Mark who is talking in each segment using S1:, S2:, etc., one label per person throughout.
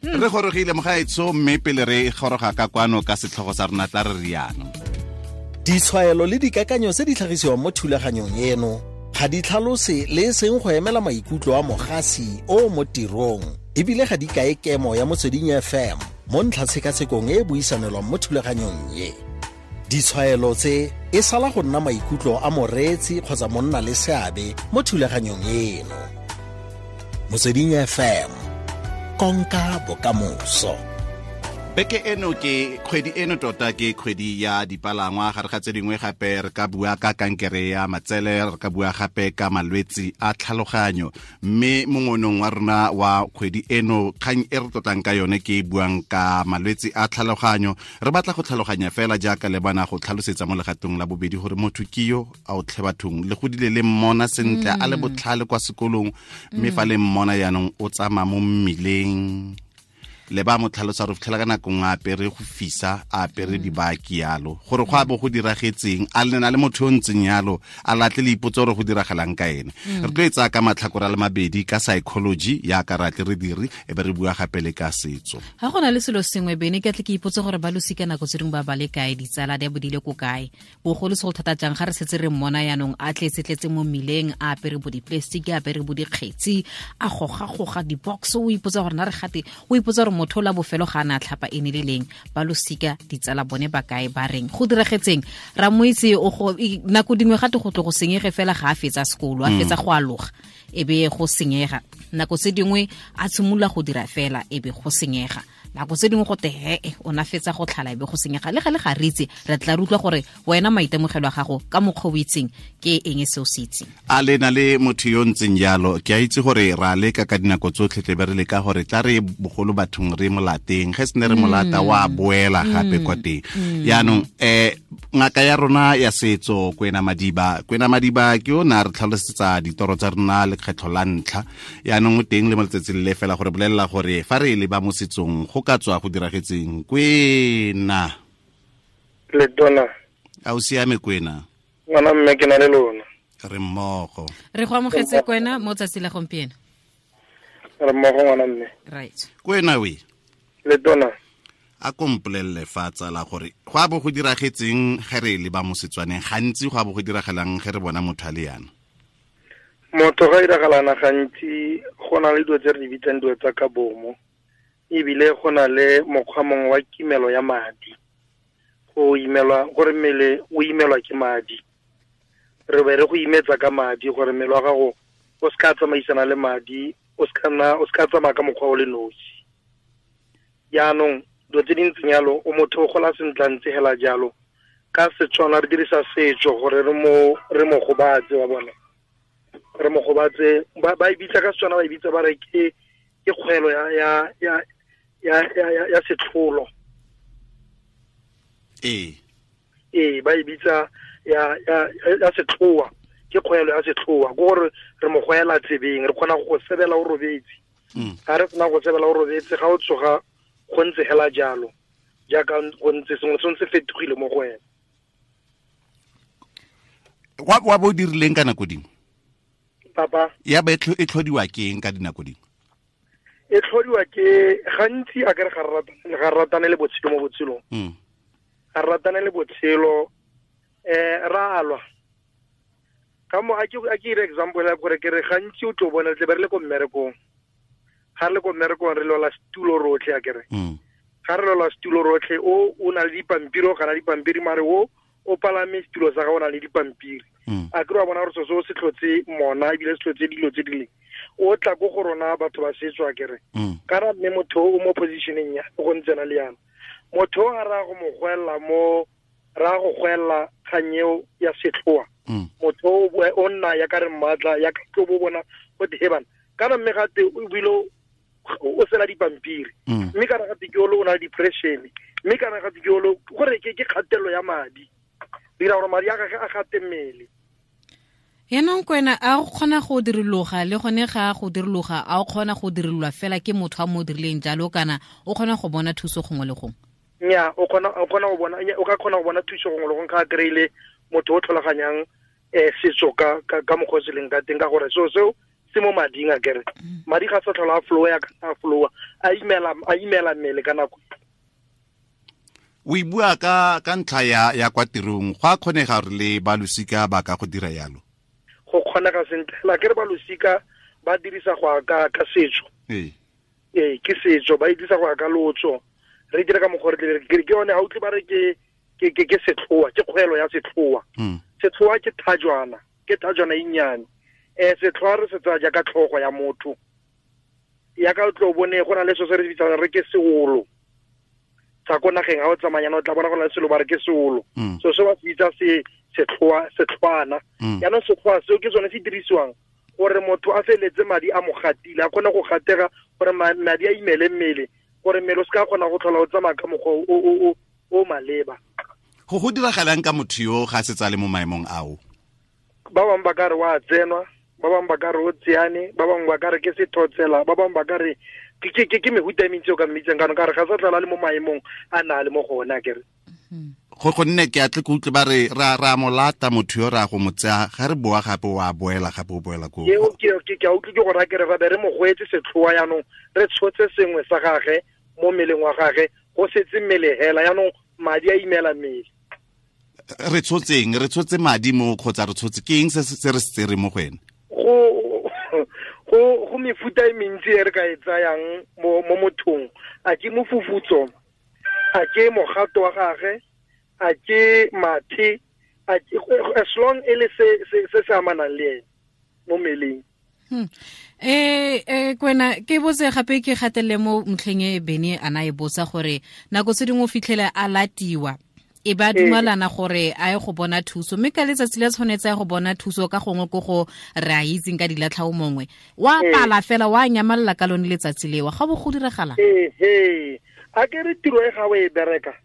S1: Re gorogile mogaetsho, mme pele re goroga ka kwano ka setlhogo sa rona, tla re riano.
S2: Ditshwaelo le dikakanyo tse di tlhagisiwang mo thulaganyong eno ga di tlhalose le e seng go emela maikutlo a mogasi o mo tirong, ebile ga di kae kemo ya Motsweding FM mo ntlhatshekatshekong e e buisanelwang mo thulaganyong ye. Ditshwaelo tse e sala go nna maikutlo a moreetsi kgotsa monna le seabe mo thulaganyong eno. Motsweding FM, konka bokamoso.
S1: Beke eno ke kgwedi eno tota ke kgwedi ya dipalangwa. Gare ga tse dingwe gape re ka bua ka kankere ya matsele, re ka bua gape ka malwetsi a tlhaloganyo. Mme mongonong wa rona wa kgwedi eno, kgang e re tlotlang ka yone ke e buang ka malwetsi a tlhaloganyo. Re batla go tlhaloganya fela jaaka le bana go tlhalosetsa mo legatong la bobedi gore motho ke yo a o tlhe bathong, le godile le mmona sentle a le botlhale kwa sekolong, mme fa le mmona yaanong o tsamaya mo mmileng, le ba mo tlhalosa re fitlhela ka nako nngwe a apere go fisa, a apere dibaki yalo, gore go a bo go diragetseng, a lena le motho yo ntseng yalo, a latle le ipotse gore go diragalang ka ene. Re tlo e tsaya ka matlhakore a le mabedi, ka psychology yaka re atle re dire, e be re bua gape le ka setso.
S3: Ga go na le selo sengwe bene ke tle ke ipotse gore ba losika nako tse dingwe ba ba le kae, ditsala di a bodile ko kae, bogolo segolo thata jang ga re setse re mmona yaanong a tletse-tletse mo mmileng, a apere bo di-plastic, a apere bo dikgetsi, a goga-goga di-box, o ipotsa gore na re gate, o ipotsa gore motho o la bofelo ga a ne a tlhapa e ne le leng. Ba losika, ditsala bone ba kae, ba reng, go diragetseng? Ra mo itse nako dingwe gate go tlo go senyege fela ga a fetsa sekolo, a fetsa go aloga, e be go senyega. Nako tse dingwe a tshimolola go dira fela, e be go senyega. Nako tse dingwe go te hee o na fetsa go tlhala, e be go senyega. Le gale ga re itse, re tla re utlwa gore wena maitemogelo a gago ka mokgwa o itseng ke eng se o se itseng.
S1: A le na le motho yo ntseng jalo? Ke a itse gore ra leka ka dinako tsotlhe, tle be re leka gore tla re bogolo bathong re molateng, ge se ne re molata wa boela gape kwa teng. Yaanong ngaka ya rona ya setso Kwena Madiba, Kwena Madiba ke o ne a re tlhalosetsa ditoro tsa rona lekgetlho la ntlha, yaanong o teng le mo letsatsing le fela gore bolelela gore fa re leba mo setsong go ka tswa go diragetseng. Kwena.
S4: Le tona.
S1: A o siame Kwena?
S4: Ngwana mme, ke na le lona.
S1: Re mmogo.
S3: Re go amogetse Kwena mo tsatsi la gompieno.
S4: Re mmogo ngwana mme.
S3: Right.
S1: Kwena we.
S4: Le tona.
S1: A kompolelele fa tsala gore go a bo go diragetseng ge re leba mo Setswaneng, gantsi go a bo go diragalang ge re bona motho a le yana?
S4: Motho ga iragalana gantsi go na le dilo tse re di bitsang dilo tsa ka bomo, ebile go na le mokgwa mongwe wa kimelo ya madi, go imelwa gore mmele o imelwa ke madi, re be re go imetsa ka madi gore mmele wa gago o se ka tsamaisana le madi, o se ka nna, o se ka tsamaya ka mokgwa o le nosi. Jaanong dilo tse di ntseng jalo, o motho o gola sentle a ntse hela jalo. Ka Setswana re dirisa setso gore re mo gobatse, wa bona, re mo gobatse. Ba e bitsa ka Setswana, ba e bitsa ba re ke kgwelo ya setlholo. Ee, ba e bitsa ya setlhoa, ke kgwelo ya setlhoa, ke gore re mo goela tsebeng, re kgona go sebela o robetse. Ga re sena go sebela o robetse, ga o tsoga go ntse hela jalo, jaaka go ntse sengwe se ntse fetogile mo go wena.
S1: Wa bo dirileng ka nako dingwe?
S4: Papa?
S1: Ya ba e tlhodiwa ke eng ka dinako dingwe?
S4: E tlhodiwa ke gantsi a kere ga re ratane le botshelo mo botshelong. Ga re ratane le botshelo, ra alwa. Ka mo a ke ire example ya gore ke re gantsi o tlo bona tle be re le ko mmerekong. Ga re le ko mmerekong re lwala setulo rotlhe a kere. Ga re lwala setulo rotlhe, o na le dipampiri, o gana dipampiri, mare o palame setulo sa gago o na le dipampiri. A kere wa bona gore so se tlhotse mona, ebile se tlhotse dilo tse di leng. O tla ko go rona batho ba setso a kere. Kana mme motho o mo positioneng ya go ntse na le yana. Motho o a ra go mo gwella mo, ra go gwella kgang eo ya setlhoa. Motho o nna ya ka re mmatla, ya ka tlo bo bona go te he bana. Kana mme gate o bile o sela dipampiri. Mme kana gate ke o na le depression. Mme kana gate ke o gore ke kgatelelo ya madi. Dira gore madi a gagwe a gate mmele.
S3: Yaanong Kwena, a o kgona go diriloga le gone ga go diriloga, a o kgona go dirilwa fela ke motho a mo dirileng jalo, kana o kgona go bona thuso gongwe le gongwe?
S4: Nnyaa, o kgona, o kgona go bona, nnyaa, o ka kgona go bona thuso gongwe le gongwe ga a kry-ile motho o tlhaloganyang setso ka mokgwa o se leng ka teng, ka gore seo seo Se mo mading a kere madi ga sa tlhola a flow ya ka flow a imela mmele ka nako.
S1: O e bua ka ntlha ya kwa tirong, go a kgonega gore le ba losika ba ka go dira yalo?
S4: Go kgonega sentle la kere ba losika ba dirisa go ka setso. Ee, ke setso, ba dirisa go ka lotso. Re dira ka mokgwa re tle ke yone ha utlwe ba re ke setlhoa, ke kgwelo ya setlhoa. Setlhoa ke thajwana, e nnyane. Setlhoa re se tsaya jaaka tlhogo ya motho. Ya ka o tlo bone go na le so se re bitsang re ke seolo. Tsa ko nageng ha o tsamayana o tla bona go na le selo ba re ke seolo. So se ba se bitsa setlhoa, setlhwana. Jaanong setlhoa seo ke sone se dirisiwang gore motho a feletse madi a mo gatile, a kgone go gatega gore madi a imele mmele, gore mmele o se ka kgona go tlhola o tsamaya ka mokgwa o maleba.
S1: Go diragalang ka motho yo ga se tsale mo maemong ao?
S4: Ba bangwe ba ka re wa tsenwa, ba bangwe ba ka re o tseane, ba bangwe ba ka re ke sethotsela, ba bangwe ba ka re ke mehuta e mentsi o ka mmitseng kana ka re ga sa tlhola le mo maemong a na le mo go ona kere.
S1: Go gonne ke atle ke utlwe ba re ra molata motho yo ra go mo tsaya, ga re boa gape wa boela gape o boela ko.
S4: Eo ke a utlwe ke go raya kere ra be re mo goetse setlhoa jaanong re tshotse sengwe sa gage mo mmeleng wa gage, go setse mmele hela jaanong madi a imela mmele.
S1: Re tshotseng, re tshotse madi mo kgotsa re tshotse ke eng se re se tsere mo go ene?
S4: Go mefuta e mentsi e re ka e tsayang mo mothong. A ke mofufutso, a ke mogato wa gage, a ke mathe, as long e le se se amanang le ene mo mmeleng.
S3: Kwena ke botse gape ke gatelele mo ntlheng e Bene ana e botsa gore nako tse dingwe o fitlhele a latiwa e ba dumalana gore a ye go bona thuso, mme ka letsatsi le tshwanetse ya go bona thuso ka gongwe ko go re a itseng ka dilatlhao mongwe wa pala fela wa nyamalla ka lone letsatsi lewa, ga bo go diragala.
S4: A ke re tiro e ga o e bereka,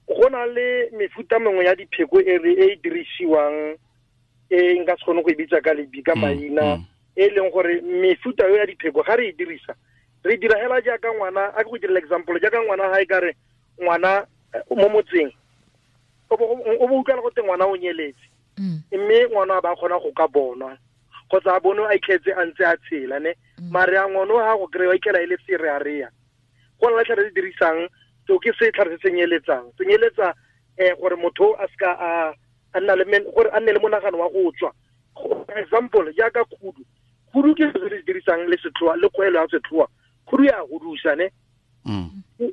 S4: go na le mefuta mengwe ya dipheko e e dirisiwang e nka se kgone go e bitsa ka lebi ka maina, e leng gore mefuta eo ya dipheko ga re e dirisa re dira hela jaaka ngwana. A ke go direla example jaaka ngwana ga e ka re ngwana mo motseng o bo utlwala gote ngwana o nyeletse, mme ngwana a ba kgona go ka bonwa kgotsa a bone a itlhetse a ntse a tshela ne, mare a ngwana o ga go kry-a itlhela e le serearea. Go na le tlhare se dirisang seo ke setlhare se senyeletsang, senyeletsa gore motho a seka a nna le gore a nne le monagano wa go tswa. Example jaaka khudu, khudu ke se se dirisang le setlhoa le kgwelo ya setlhoa, khudu ya hudusa ne,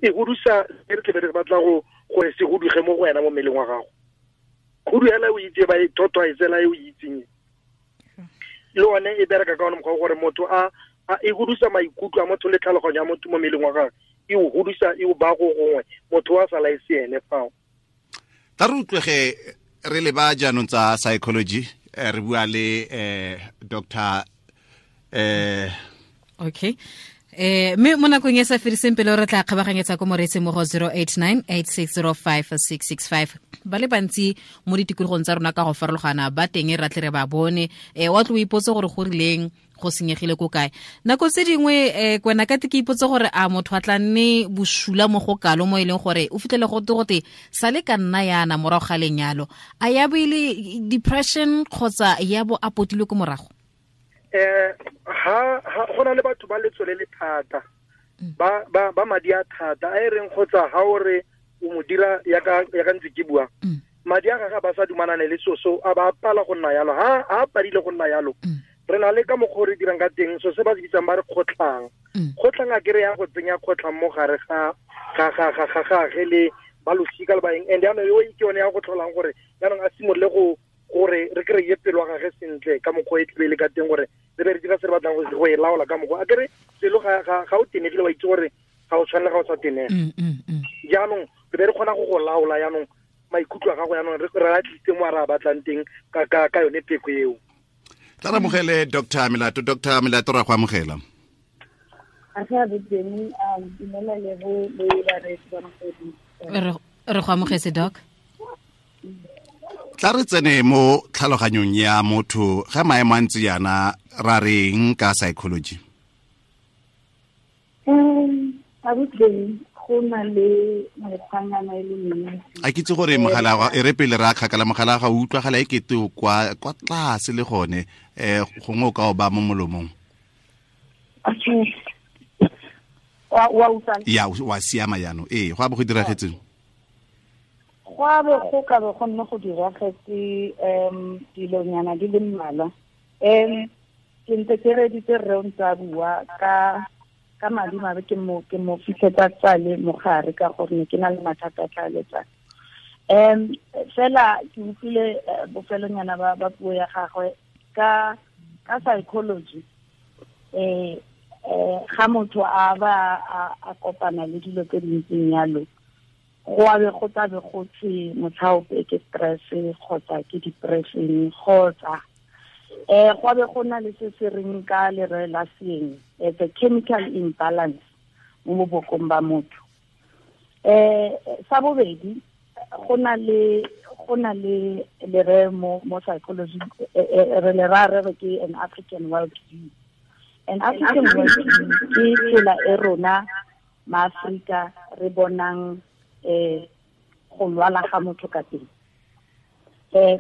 S4: e hudusa re tle re batla go gore se huduge mo go wena mo mmeleng wa gago. Khudu hela o itse ba e thotwa e tsela e o itseng le one e bereka ka one mokgwa gore motho a e hudusa maikutlo a motho le tlhaloganyo ya motho mo mmeleng wa gagwe, e o hudusa e o ba go gongwe motho wa sala e se ene fao.
S1: Tla re utlwege re leba jaanong tsa psychology, re bua le Dr.
S3: Okay. Mme mo nakong e sa fediseng pele re tla kgabaganyetsa ko moreetseng mo go 0898605665. Ba le bantsi mo ditikologong tsa rona ka go farologana ba teng re tle re ba bone. Wa tlo o ipotse gore go rileng go senyegile ko kae. Nako tse dingwe kwena ka te ke ipotse gore a motho a tla nne bosula mo go kalo mo e leng gore o fitlhele go te sa le ka nna yana morago ga lenyalo, a ya bo ile depression kgotsa ya bo a potilwe ko morago?
S4: Ha go na le batho ba letsole le thata, ba madi a thata a e reng kgotsa ha o re o mo dira ya ka ntse ke bua, madi a gagwe ba sa dumanane le soso a ba pala go nna yalo. Ha a padile go nna yalo, re na le ka mokgwa re dirang ka teng so se ba se bitsang ba re kgotlhang. Kgotlhang a kere ya go tsenya kgotlhang mo gare ga gage le ba losika le baeng, and jaanong eo ke yone ya go tlholang gore jaanong a simolole go gore re kry-e pelo wa gage sentle ka mokgwa e tlebe le ka teng gore re be re dira se re batlang go e laola ka mokgwa. A kere pelo ga o tenegile wa itse gore ga o tshwanele ga o sa tenega. Jaanong re be re kgona go laola jaanong maikutlo a gago jaanong re a tlisitse mo a re a batlang teng ka yone pheko eo.
S1: Tla re amogele Dr. Melato. Dr. Melato, ra go amogela.
S3: Re go amogetse doc.
S1: Tla re tsene mo tlhaloganyong ya motho ga maemo a ntse yana ra reng ka psychology?
S5: Go na le mekgwanyana e le mentsi.
S1: A ke itse gore mogala e re pele re a kgakala mogala ga o utlwagala e kete kwa tlase le gone, gongwe o ka o ba mo molomong.
S5: Okay. Wa utlwa?
S1: Ya, wa siama jaanong. Ee, go a bo go diragetseng?
S5: Go a bo go ka bo go nne go diragetse dilonyana di le mmalwa. Ke ntse ke reditse rre o ntse a bua ka madi mabe ke mo fitlhetsa tsale mogare ka gore ne ke na le mathata a tlhaeletsano. Fela ke utlwile bofelonyana ba puo ya gagwe ka psychology. Ga motho a ba a kopana le dilo tse dintseng yalo, go a be go tlabe go tse motlhaope ke stress kgotsa ke depression kgotsa go a be go na le se se reng ka lere la seeng, the chemical imbalance mo bobokong ba motho. Sa bobedi, go na le lere mo psychology re le ra re ke an African world view. An African world view ke tsela e rona maAfrika re bonang go lwala ga motho ka teng.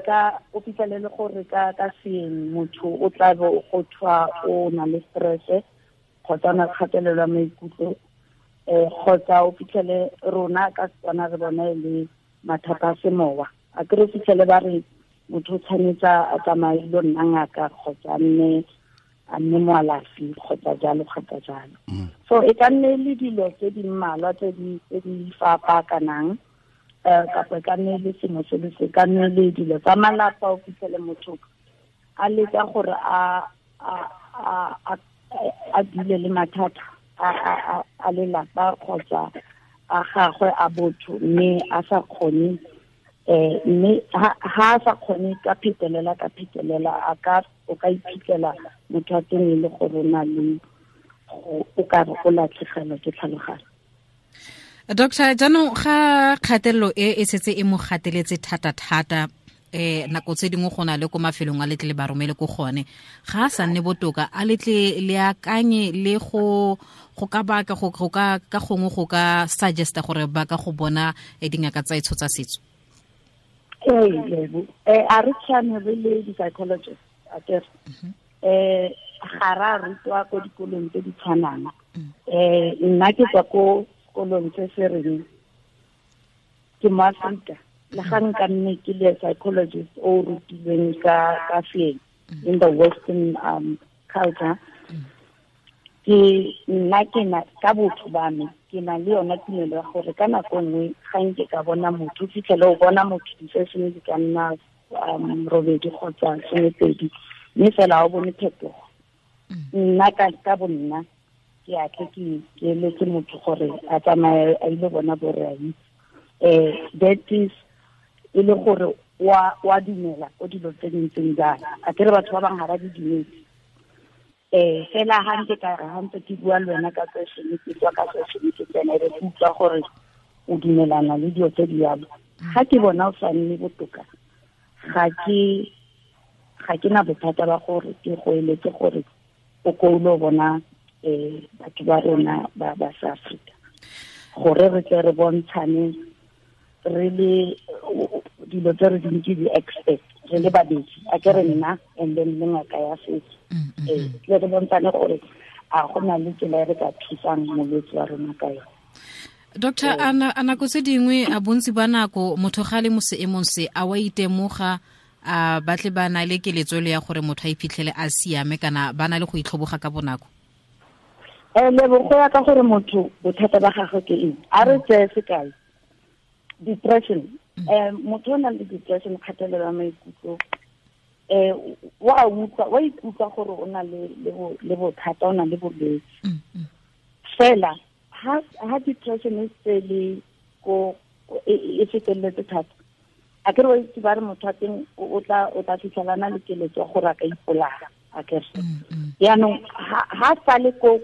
S5: Ka o fitlhelele gore ka seeng motho o tla bo go thwa o na le stress kgotsa na kgatelelo ya maikutlo, kgotsa o fitlhele rona ka Setswana re bona e le mathata a semowa. A ke re fitlhele ba re motho o tshwanetse a tsamaye lo nna ngaka kgotsa a nne moalafi kgotsa jalo kgotsa jalo. So e ka nne le dilo tse di mmalwa tse di fapakanang, kapa e ka nne le sengwe se le se ka nne le dilo tsa malapa. O fitlhele motho a leka gore a dule le mathata a lelapa kgotsa a gagwe a botho, mme a sa kgone mme ha a sa kgone ka phetelela a ka o ka iphitlhela motho a teng e le gore o na le o ka re o latlhegelwa ke tlhaloganyo.
S3: Doctor, jaanong ga kgatelelo e setse e mo gateletse thata-thata, nako tse dingwe go na le ko mafelong a letle le ba romele ko gone, ga a sa nne botoka, a letle le akanye le go ka baka go ka ka gongwe go ka suggesta gore ba ka go bona dingaka tsa etsho tsa setso?
S5: Ee, a re tshwane re le di-psychologist a kere ga ra rutwa ko dikolong tse di tshwanang. Nna ke tswa ko sekolong se se reng ke mo Afrika, le ga nka nne ke le psychologist o rutilweng ka seeng in the western culture, ke nna ke na ka botho ba me ke na le yona tumelo ya gore ka nako nngwe ga nke ka bona motho, fitlhele o bona motho di-session di ka nna robedi kgotsa 12, mme fela o bone phetogo. Nna ka bonna ke a tle ke eletse motho gore a tsamaye a ile bona borai. That is e le gore wa dumela ko dilo tse dintseng jana. A kere batho ba bangwe ga ba di dumetse. Fela ha ntse ka re ha ntse ke bua le wena ka session, ke tswa ka session ke tsena re utlwa gore o dumelana le dilo tse di yalo. Ga ke bona o sa nne botoka, ga ke na bothata ba gore ke go eletse gore o ko o bona batho ba rona ba South Africa, gore re tle re bontshane re le dilo tse re dintse di-expert re le babedi, a ke re nna and then le ngaka ya setso, tle re bontshane gore a go na le tsela e re ka thusang molwetse wa rona ka yone.
S3: Doctor, a nako tse dingwe a bontsi ba nako motho ga le mo seemong se a wa itemoga, a batle ba na le keletso le ya gore motho a iphitlhele a siame, kana ba na le go itlhoboga ka bonako?
S5: Lebo, go ya ka gore motho bothata ba gagwe ke eng. A re tseye sekai, depression. Motho o nang le depression, kgatelelo ya maikutlo, wa ikutlwa gore o na le bothata, o na le bolwetse. Fela ha depression e se le ko e feteletse thata, a ke re wa itse ba re motho wa teng o tla fitlhelana le keletso ya gore a ka ipolaya, a kere. Jaanong ha sa le ko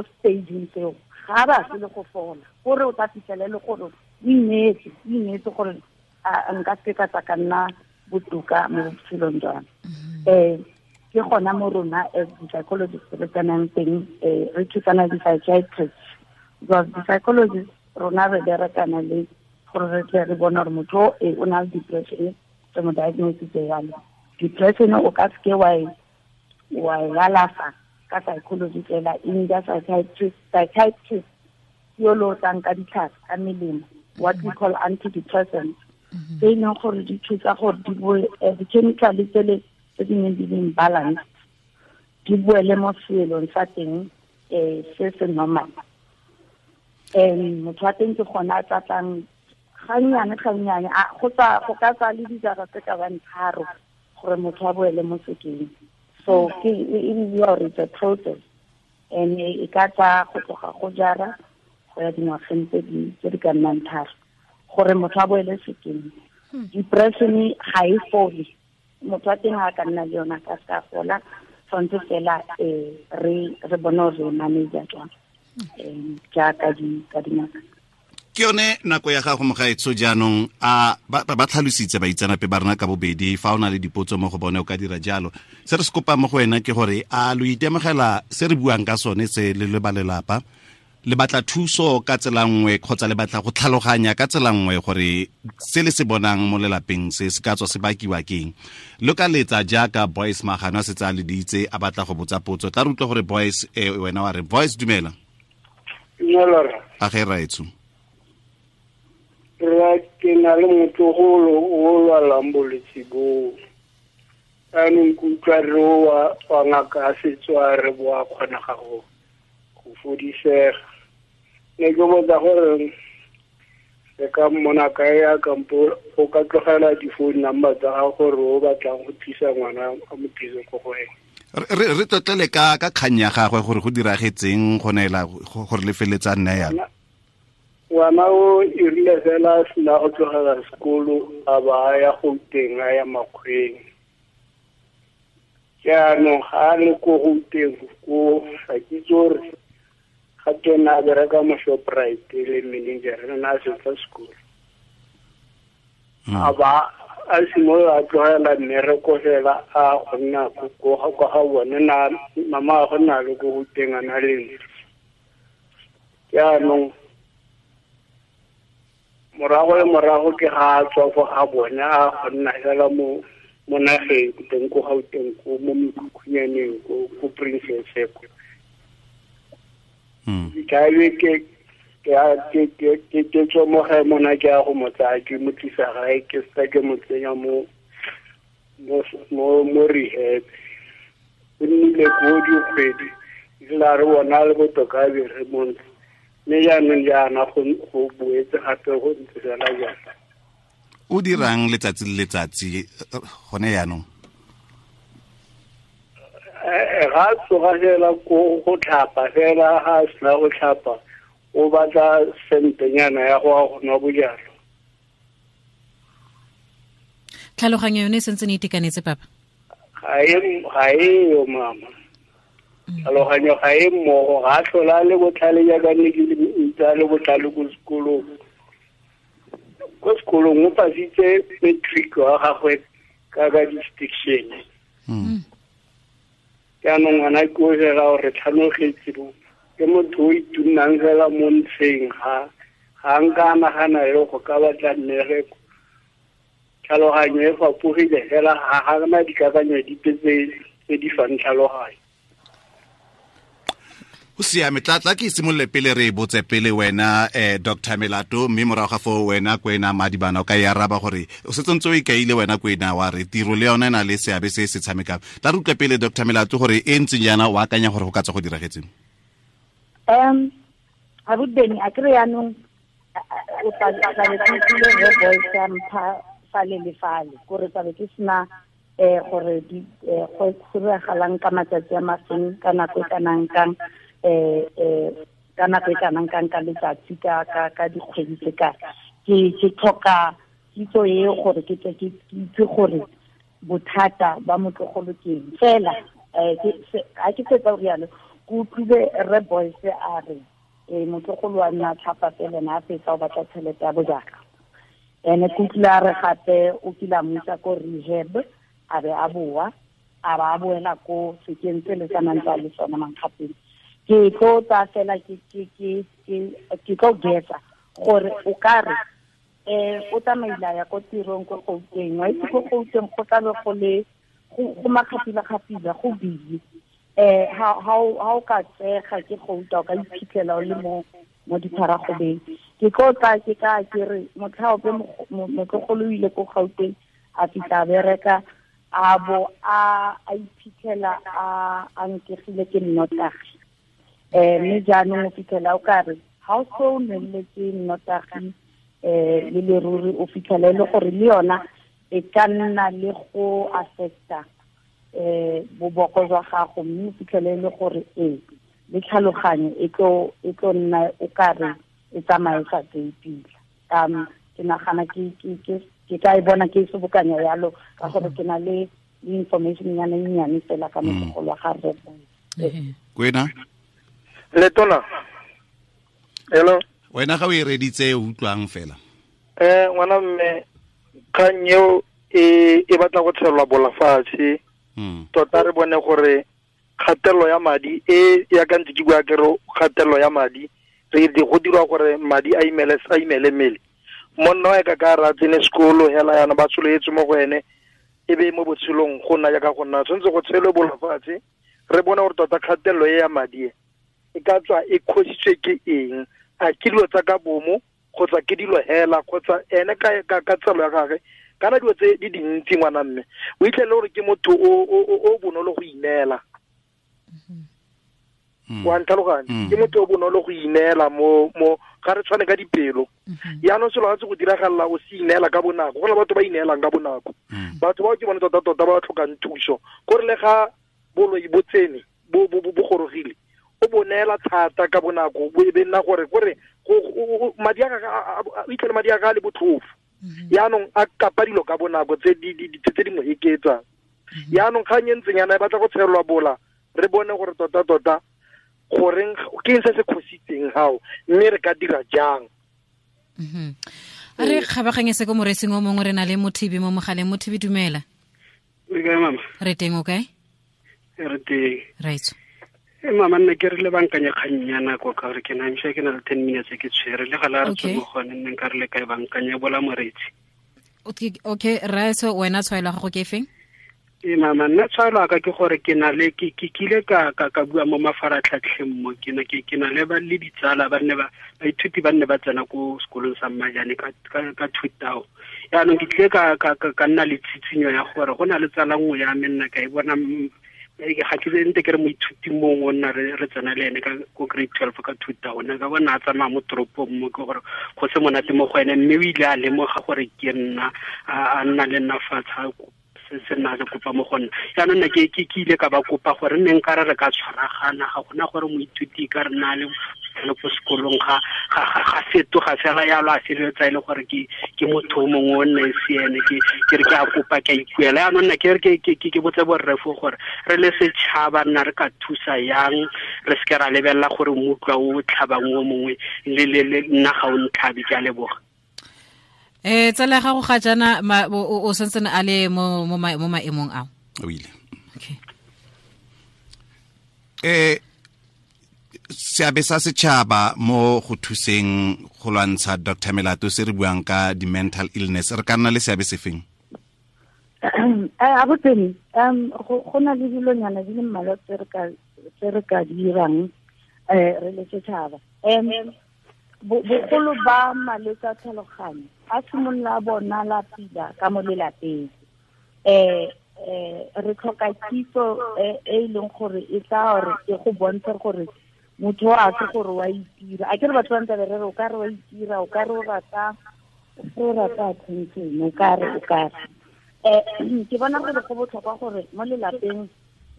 S5: stageng tseo, ga ba se le go fola, gore o tla fitlhele le gore o ineetse gore nka se ka tsa ka nna botoka mo botshelong jwa me. Ke gona mo rona as di-psychologists re tsenang teng, re thusana di-psychiatrists, because di-psychologists rona re berekana le gore re tle re bone gore motho o na le depression, re mo diagnositse jalo. Depression o ka seke wa e alafa ka psychology fela, e need psychiatrist yo lo tlang ka ditlhare, ka melemo, what we call antidepressants, tse e leng gore di thusa gore di boe di-chemical tsele tse di neng di le imbalance di boele mo seelong sa teng se se normal. Motho wa teng ke gona a tlatlang gannyane gannyane, go ka tsaya le dijara tse ka bang 3 gore motho a boele mo sekeng. So ke e bidiwa gore it's a process, and e ka tsaya go tloga go jara go ya dingwageng tse di ka nnang 3 gore motho a boele sekeng. Depression ga e fole, motho wa teng ga a ka nna le yona ka se ka fola, tshwanetse fela re bone gore re manage jang jaaka ka dingaka.
S1: Ke yone nako ya gago mogaetsho jaanong, a ba tlhalositse baitseanape ba rona ka bobedi. Fa o na le dipotso mo go bone o ka dira jalo. Se re se kopang mo go wena ke gore a lo itemogela se re buang ka sone se le le ba lelapa, le batla thuso ka tsela nngwe kgotsa le batla go tlhaloganya ka tsela nngwe gore se le se bonang mo lelapeng se se ka tswa se bakiwa keng. Lo ka letsa jaaka Boyce Magano a setse a leditse a batla go botsa potso. Tla re utlwe gore Boyce, wena wa re Boyce dumela.
S6: Dumela.
S1: A ge raetsho.
S6: Rra, ke na le motlogolo o lwalang bolwetse boo. Jaanong ke utlwa re wa ngaka a setso a re bo a kgonega go fodisega. Ne ke botsa gore re ka mmona kae a kampo o ka tlogela di-phone number tsa gago gore o batlang go tlisa ngwana a mo tlise ko go ene.
S1: Re tlotlele ka kgang ya gagwe gore go diragetseng go neela gore le feletsa nna yalo.
S6: Ngwana o e rile fela a sena go tlogela sekolo a ba a ya Gauteng, a ya Makgweng. Jaanong ga a le ko Gauteng ko ga ke itse gore ga ke ne a bereka mo Shoprite le manager, ne a fetsa sekolo. A ba a simolola a tlogela mmereko fela a go nna ko ga bone, na mama a go nna le ko Gauteng a na le ntlo. Jaanong morago le morago ke ga a tswa fo ga bone a go nna fela mo nageng teng ko Gauteng ko mo mekhukhunyaneng ko Princess ko. Ke tswa mo gae mona ke ya go mo tsaya ke mo tlisa gae, ke seka ke mo tsenya mo rehab. O nnile ko dikgwedi, ebile a re bona le botoka a be re mo ntlo. Mme jaanong jaana go boetse gape go ntse fela jaana.
S1: O dirang letsatsi le letsatsi gone jaanong?
S6: Ga a tsoga fela ko go tlhapa fela, ga a sena go tlhapa o batla sentenyana ya go ya go nwa bojalwa.
S3: Tlhaloganyo yone e sentse e itekanetse papa?
S6: Ga e yo mama. Tlhaloganyo ga e mmogo, ga a tlhola le botlhale jaaka ne ke ntse a le botlhale ko sekolong. Ko sekolong o pasitse matric wa gagwe ka distinction. Jaanong ngwana ke o fela gore tlhanogetse bo ke motho o itunnang fela mo ntsheng, ga nka a nagana le go ka batla mmereko. Tlhaloganyo e fapogile fela, ga na dikakanyo dipe tse di fang tlhaloganyo.
S1: O siame, tla ke simolole pele re botse pele wena Dr. Melato, mme morago ga foo wena Kwena Madibana o ka e araba gore o setse ntse o ikaile wena Kwena wa re tiro le yona e na le seabe se se tshamekang. Tla re utlwe pele Dr. Melato gore e ntseng jaana o akanya gore go ka tswa go diragetseng.
S5: Abuti a kry yaanong o tlabe ke utlwile re Boyce a mpha fale le fale, kore tlabe ke sena gore go diragalang ka matsatsi a mafeng, ka nako e kanang kang, ka nako e kanang kang ka letsatsi, ka dikgwedi tse kae. Ke tlhoka kitso e gore ke tle ke itse gore bothata ba motlogolo ke eng. Fela ga ke fetsa go rialo, ke utlwile rre Boyce a re motlogolo wa nna tlhapa fela ene a fetsa o batla tšhelete ya bojalwa. Ene ke utlwile a re gape o kile a mo isa ko rehab, a be a boa, a ba a boela ko sekeng se le tsanang tsa le sona mankgapeng. Ke tlo tsaya fela ke tlo guessa gore o ka re o tsamaile a ya ko tirong ko Gauteng, wa itse ko Gauteng go tlabe go le go makgapila-kgapila, go busy. Ha o ka tsega ke gouta o ka iphitlhela o le mo ditharagobeng. Ke tlo tla ke ka ke re motlhaope motlogolo o ile ko Gauteng a fitlha bereka a bo a iphitlhela a nkegile ke nnotagi. Mme jaanong o fitlhela o kare ha o so nweletse nnotagi le leruri o fitlhela e le gore le yona e ka nna le go affecta boboko jwa gago, mme o fitlhele e le gore le tlhaloganyo e tlo nna o kare e tsamaye sa tseye pila. Ke nagana ke ka e bona ke sobokanya yalo ka gore ke na le information nyana e nnyane fela ka motlogolo wa ga rre.
S1: Kwena
S4: Letona. Hello.
S1: Wena ga o e reditse o utlwang fela.
S4: Ngwana mme kgang eo e batla go tshelwa bolafatshe. Tota re bone gore kgatelelo ya madi e ya ka ntse ke bua ke re kgatelelo ya madi re di go dirwa gore madi a imele mmele. Monna wa ka ra tsene sekolo hela yana ba tsholetse mo go ene e be mo botshelong go nna jaaka go nna tshwanetse go tshelwe bolafatshe re bone gore tota kgatelelo e ya madi e ka tswa e khositswe ke eng, a ke dilo tsa ka bomo kgotsa ke dilo hela kgotsa ene ka tsalo ya gagwe kana dilo tse di dintsi ngwana mme o itlhele gore ke motho o bonolo go ineela. Wa ntlhaloganya, ke motho o bonolo go ineela mo ga re tshwane ka dipelo. Yaanong selo ga se go diragalela o se ineela ka bonako, go na batho ba ineelang ka bonako. Batho bao ke bone tota-tota ba tlhokang thuso, gore le ga boloi bo tsene bo gorogile o bonela thata ka bonako bo e be nna gore madi a o itlhele madi a ga le botlhofo. Yaanong a kapa dilo ka bonako tse di mo eketsang. Yaanong kgang e ntseng yana e batla go tshelwa bola re bone gore tota-tota goreng ke eng se se khositseng gao mme re ka dira jang.
S3: A re kgabaganye se ko moresing o mongwe, re na le Mothibi mo mogaleng. Mothibi, dumela.
S7: Le kae mama?
S3: Re teng, o kae?
S7: Re teng.
S3: Right.
S7: Mama nna ke re le bankanya kgang ya nako ka gore ke na msha ke na le 10 minutes ke tshwere le gala re tswe mo gone nne nka re le kae bankanya bola moretsi.
S3: Okay, Raitso, wena tshwaelo ya gago ke efeng?
S7: Mama nna tshwaelo ka ke gore ke na le ke kile ka bua mo mafaratlhatlheng mo ke na ke na le ba le ditsala ba nne ba baithuti ba nne ba tsena ko sekolong sa Mmajane ka 2000. Yaanong ke tlile ka nna le tshitsinyo ya gore go na le tsala nngwe ya me nna ka e bona ga ke ntse ke re moithuti mongwe o nna re tsena le ene ka ko grade 12 ka 2000 ka bona a tsamaya mo toropong mo ke gore go se monate mo go ene, mme o ile a lemoga gore ke nna a nna le nna fatshe se nna le kopa mo go nna. Jaanong nna ke ile ka ba kopa gore nne nka re ka tshwaragana, ga gona gore moithuti ka re na le ko sekolong ga fetoga fela yalo a feleletsa e le gore ke motho o mongwe o nna e se ene, ke re ke a kopa ke a ikuela. Jaanong nna ke re ke botse borrefo gore re le setšhaba nna re ka thusa yang, re seke ra lebelela gore mmutlwa o tlhabang o mongwe le nna ga o ntlhabe. Ke a leboga.
S3: Tsala gago ga jana o santsene a le mo maemong ao?
S1: O ile.
S3: Okay.
S1: Seabe sa setšhaba mo go thuseng go lwantsha Dr. Melato se re buang ka di-mental illness, re ka nna le seabe sefeng?
S5: Abuti, go na le dilonyana di le mmalwa tse re ka dirang re le setšhaba. Bogolo ba malwetse a tlhaloganyo a simolola bona la pila ka mo lelapeng. Re tlhoka kitso e e leng gore e tla gore e go bontshe gore motho a se gore wa itira. A ke re batho ba ntse ba re o ka re wa itira, o ka re o rata attention, o ka re. Ke bona gore go botlhokwa gore mo lelapeng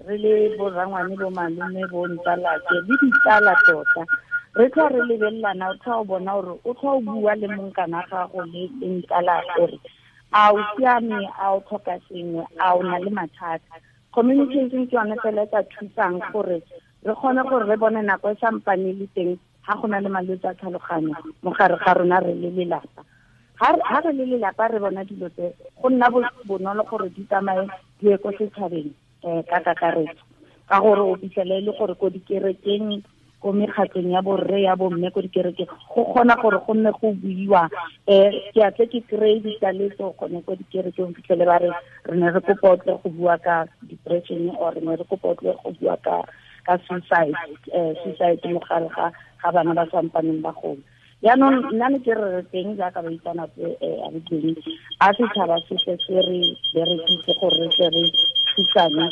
S5: re le borangwane, bo malome, bo ntsalake le ditsala tota re tla re lebelelana, o tla o bona gore o tla o bua le monkana gago le ntsala gore a o siame, a o tlhoka sengwe, a o na le mathata. Communication ke yone fela e ka thusang gore re kgone gore re bone nako e sampane le teng ga go na le malwetse a tlhaloganyo mo gare ga rona re le lelapa. Ha re le lelapa re bona dilo tse go nna bonolo gore di tsamaye di ye ko setšhabeng ka kakaretso, ka gore o fitlhele e le gore ko dikerekeng, Ko mekgatlong ya borre ya bomme ko dikerekeng go kgona gore go nne go buiwa ke a tle ke kry-e ditaletso gone ko dikerekeng fitlhele ba re re ne re kopa o tle go bua ka depression or re ne re kopa o tle go bua ka suicide suicide mo gare ga bana ba sampaneng ba gola. Yaanong nna ne ke re re teng jaaka baitsanape a re teng a setšhaba se tle se re berekise gore re tle re thusane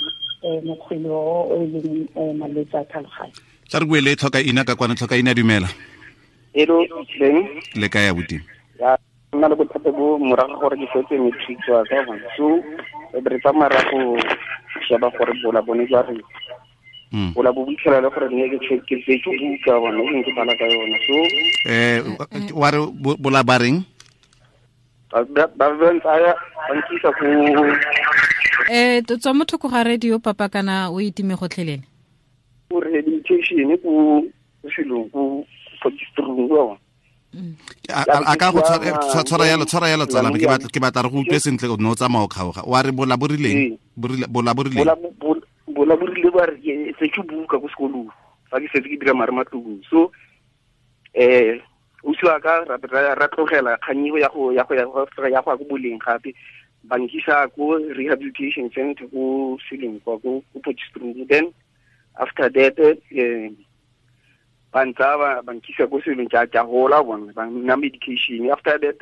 S5: mokgwele o e leng malwetse a tlhaloganyo.
S1: Tla re bue le Tlhokaina ka kwana. Tlhokaina, dumela.
S8: Hello, Leng.
S1: Le kae abuti?
S8: Ya, nna le bothata bo morago gore ke fetse matric wa ka bona. So re tsamaya ra go sheba gore bola bone jwa re. Bola bo boitlhela le gore nne ke ke tsetse buka bona ke bala ka yona. So
S1: wa re bola ba reng?
S8: Ba ba ntsaya ba nkisa go
S3: tswa motho go ga radio papa kana o itime gotlhelele.
S8: O rehabilitation ko selong ko Potchefstroom wa.
S1: A ka go tshwara yalo tsala ke batla re go utlwe sentle o no tsamaya o kgaoga. Wa re bola borileng? Bola borile.
S8: Bola borile ba re se ke buka ko sekolong. Fa ke setse ke dira mare matlong. So o siwa ka ra tlogela kganyigo ya go ya go boleng gape ba nkisa ko rehabilitation center ko selong kwa ko Potchefstroom. Then after that ba ntsa ba nkisa ko selong ka hola bona ba nna medication. After that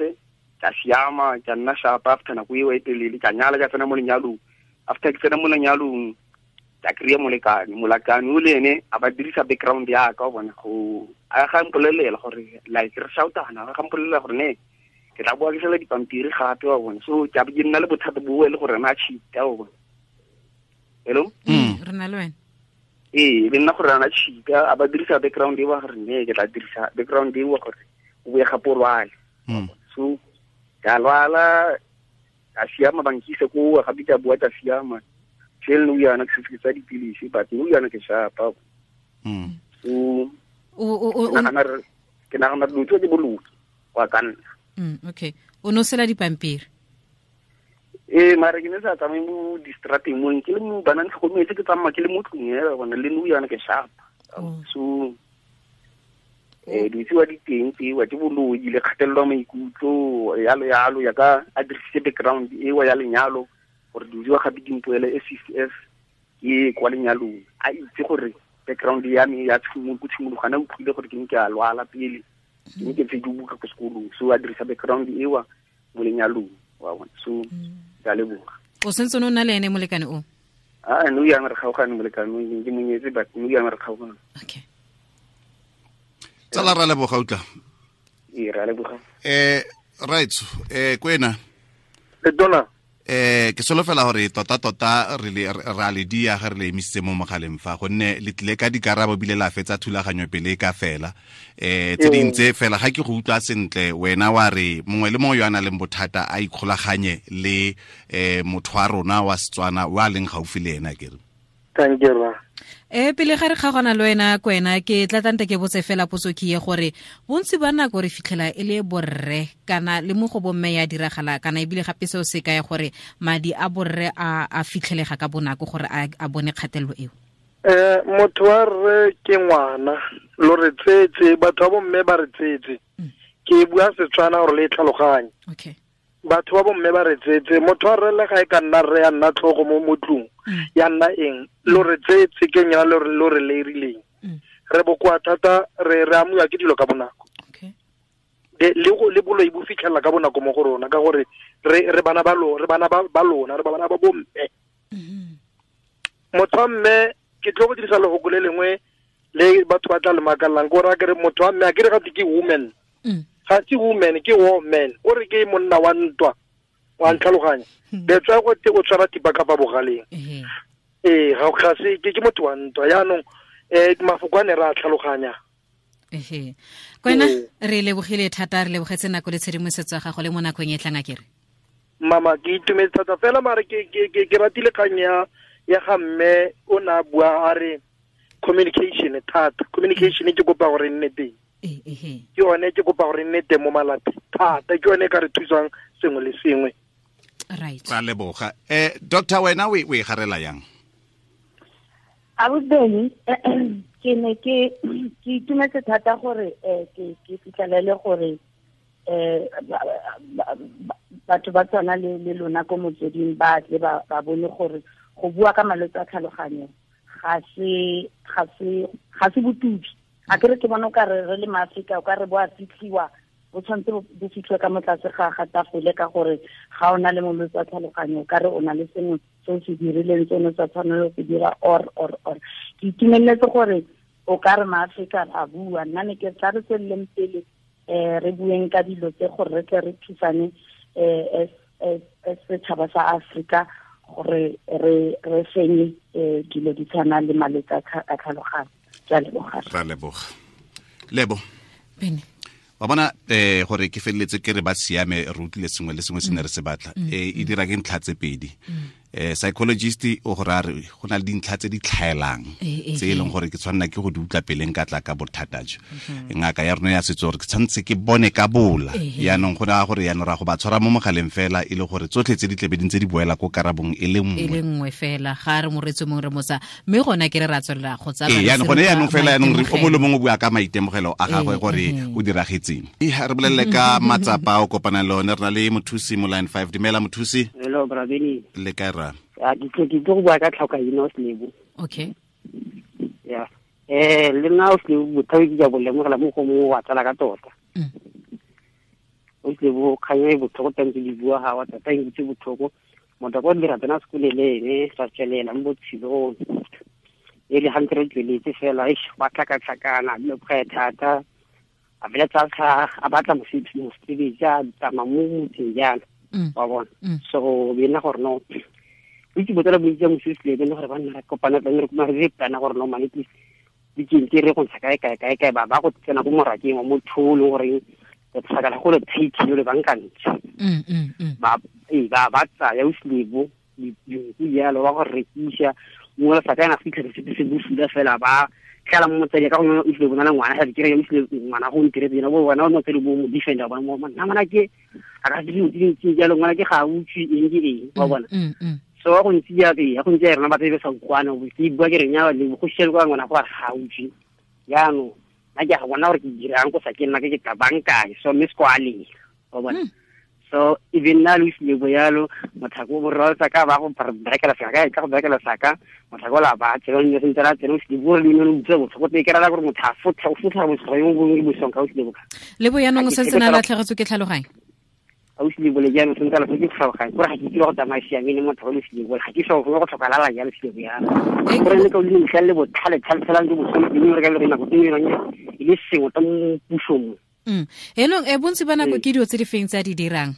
S8: ka siama ka nna sharp after nako eo e telele ka nyala ka tsena mo lenyalong. After ke tsena mo lenyalong ka kry-a molekane o le ene a ba dirisa background ya ka bona go a ga mpolelela gore like re shoutana ga mpolelela gore ne ke tla boa ke sela dipampiri gape wa bona. So ke a be ke nna le bothata bo e le gore na cheat-a wa bona. Hello?
S3: Re na le wena.
S8: Ee, le nna gore ana cheat-a a ba dirisa background e wa gore ne ke tla dirisa background e wa gore o boe gape o lwale. So ka lwala ka siama ba nkisa ko gape ke a bua ka siama. Tšhele nou yana ke setse ke tsaya dipilisi but nou yana ke shapa. So ke nagana dilo tse ke boloki wa ka nna.
S3: Okay. O no sela dipampiri?
S8: Ee, mare ke ne sa tsamaye mo distrateng mo ke le mo bana ntlhokometse ke tsamaya ke le mo tlung hela bona le nou yana ke shapa. So dilo tsewa di teng tsewa ke boloi le kgatelelo ya maikutlo yalo yalo ya ka a dirisitse background ewa ya lenyalo gore dilo tsewa gape di mpoele SCF ke kwa lenyalong a itse gore background ya me ya tshimologana utlwile gore ke ne ke a lwala pele ke ne ke tse di buka ko sekolong. So a dirisa background ewa mo lenyalong wa bona. So ke a leboga.
S3: O sentse o na le ene molekane o?
S8: Ah, no yang re kgaogane molekane o ke monyetse but no yang re kgaogane.
S3: Okay.
S1: Tsala ra leboga utla.
S8: Ee, ra leboga.
S1: Right, kwena.
S4: Le dona.
S1: Ke solofela gore tota re ra le dia ga re le emisitse mo mogaleng fa gonne le tlile ka dikarabo bile la fetsa thulaganyo pele ka fela. Tse dintse fela ga ke go utlwa sentle wena wa re mongwe le mongwe yo a nang le bothata a ikgolaganye le motho wa rona wa Setswana wa leng gaufi le ena ke re.
S4: Thank you.
S3: Pele ga re kgaogana le wena kwena ke tla tante ke botse fela potso ke ye gore bontsi ba nako re fitlhela e le borre kana le mo go bomme ya diragala kana ebile gape seo se kaya gore madi a borre a fitlhelega ka bonako gore a bone kgatelelo eo.
S4: Motho wa rre ke ngwana lo re tsetse batho ba bomme ba re tsetse. Ke bua Setswana gore le tlhaloganye.
S3: Okay.
S4: Batho ba bomme ba re tsetse motho wa rre le ga e ka nna rre ya nna tlhogo mo motlong ya nna eng lo re tsetse ke nyana lo re leirileng. Re bokoa thata re amuwa ke dilo ka bonako.
S3: Okay.
S4: Le boloi bo fitlhela ka bonako mo go rona ka gore re bana ba lo re bana ba lona re bana ba bomme. Motho wa mme ke tlo go dirisa lefoko le lengwe le batho ba tla le makallang ko ra ke re motho wa mme a ke re gate ke woman. Ga se woman ke woman o re ke monna wa ntwa wa ntlhaloganya. That's why go te o tshwara thipa ka fa bogaleng. Ee, ga se ke motho wa ntwa yaanong mafoko a ne re a tlhaloganya.
S3: Kwena re lebogile thata re lebogetse nako le tshedimosetso ya gago le mo nakong e tlang a kere.
S4: Mama ke itumetse thata fela mare ke ratile kgang ya ga mme o ne a bua a re communication thata. Communication ke kopa gore nne teng. Ke yone ke kopa gore nne teng mo malapeng thata ke yone e ka re thusang sengwe le sengwe.
S3: Right.
S1: Ra leboga. Doctor wena o e garela yang?
S5: Abusi ke ne ke itumetse thata gore ke fitlhelele gore batho ba tswana le lona ko motsweding ba tle ba bone gore go bua ka malwetse a tlhaloganyo ga se botubi. A kere ke bona o ka re le maAfrika o ka re bo a fitlhiwa, bo tshwanetse bo fitlhiwe ka mo tlase ga tafole ka gore ga o na le molwetse wa tlhaloganyo o ka re o na le sengwe se o se dirileng se o ne sa tshwanelo se dira or. Ke itumeletse gore o ka re maAfrika a bua, nna ne ke tla re tsweleleng pele re bueng ka dilo tse gore re tle re thusane as setšhaba sa Afrika gore re fenye dilo di tshwana le malwetse a tlhaloganyo. Ke a leboga.
S1: Ra leboga. Lebo.
S3: Bene.
S1: Wa bona gore ke feleletse ke re ba siame re utlwile sengwe le sengwe se ne re se batla. E dira ke ntlha tse pedi. Psychologist o go ra re go na le dintlha tse di tlhaelang tse e leng gore ke tshwanela ke go di utlwa peleng ka tla ka bothata jo. Ngaka ya rona ya setso gore ke tshwanetse ke bone ka bola. Yaanong go raya gore yaanong ra go ba tshwara mo mogaleng fela e le gore tsotlhe tse di tlebe di ntse di boela ko karabong e le nngwe.
S3: E le nngwe fela ga re moretse mongwe re motsa mme gona ke re ra tswelela go tsaya.
S1: Yaanong gone yaanong fela yaanong re o mongwe le mongwe o bua ka maitemogelo a gagwe gore o diragetseng. Re bolelele ka matsapa o kopana le one, re na le mothusi mo line 5. Dumela mothusi.
S9: Hello Brabeni.
S1: Le kae ra?
S9: Ke tlo go bua ka tlhokaina o Selebo.
S3: Okay.
S9: Yeah. Le nna o Selebo bothabi ke ja bo lemogela mo go mongwe wa tsala ka tota. O Selebo kgang e botlhoko tantse di bua ga wa tota e ntse botlhoko. Motho ko dira tsena sekole le ene ra tswelela mo botshelong. E le hantle re tsweletse fela eish ba tlhakatlhakana dilo kgwe thata. A feletsa a batla mosebetsi a tsamaya mo motseng jalo. Wa bona. So be nna gore no itse botsala bontsi ya mosisi le gore ba nna re kopana tla re kuma re plana gore no mane please weekend re go ntsha kae kae kae kae ba ba go tsena ko morakeng wa motho o leng gore re tlhakala go le tight le bankantse. Ba ba tsaya o Selebo dinku jalo ba go rekisa mongwe le sakana fitlha se se bosula fela ba tlala mo motsadi ka gongwe o Selebo na le ngwana ga dikere o Selebo ngwana go ntiretse yena bo wena o motsadi bo mo defender bona mo nna ngwana ke a ka se dilo tse jalo ngwana ke ga utswe eng ke eng wa bona. So go ntse ya ke ya go ntse rena ba tsebe sa ukwana bo ke bua ke re nya le go shela kwa ngwana go ga utswe jaanong nna ke a bona gore ke dirang go sa ke nna ke tla bankae so mme skwale wa bona. So even nna le Selebo yalo motlhako borra tsa ka ba go berekela saka ka go berekela saka motlhako la ba tsela ne sentse la tsela Selebo le ne le utlwa botlhoko te ke rala gore motho a fotlha o fotlha botlhoko yo bongwe bosong ka o Selebo ka
S3: Lebo yaanong o sentse na latlhegetswe ke tlhaloganyo.
S9: A o Selebo le jaanong sentse la ke tlhaloganyo gore ga ke itse go tsamaya siameng motho o le Selebo ga ke so go tlhokalala jalo Selebo yana gore le ka o le ntlha le botlhale tlhale ke bosong le re ka le nako tse dingwe e le sengwe ta mo pusong.
S3: Enong bontsi ba nako ke dilo tse di feng tse a di dirang?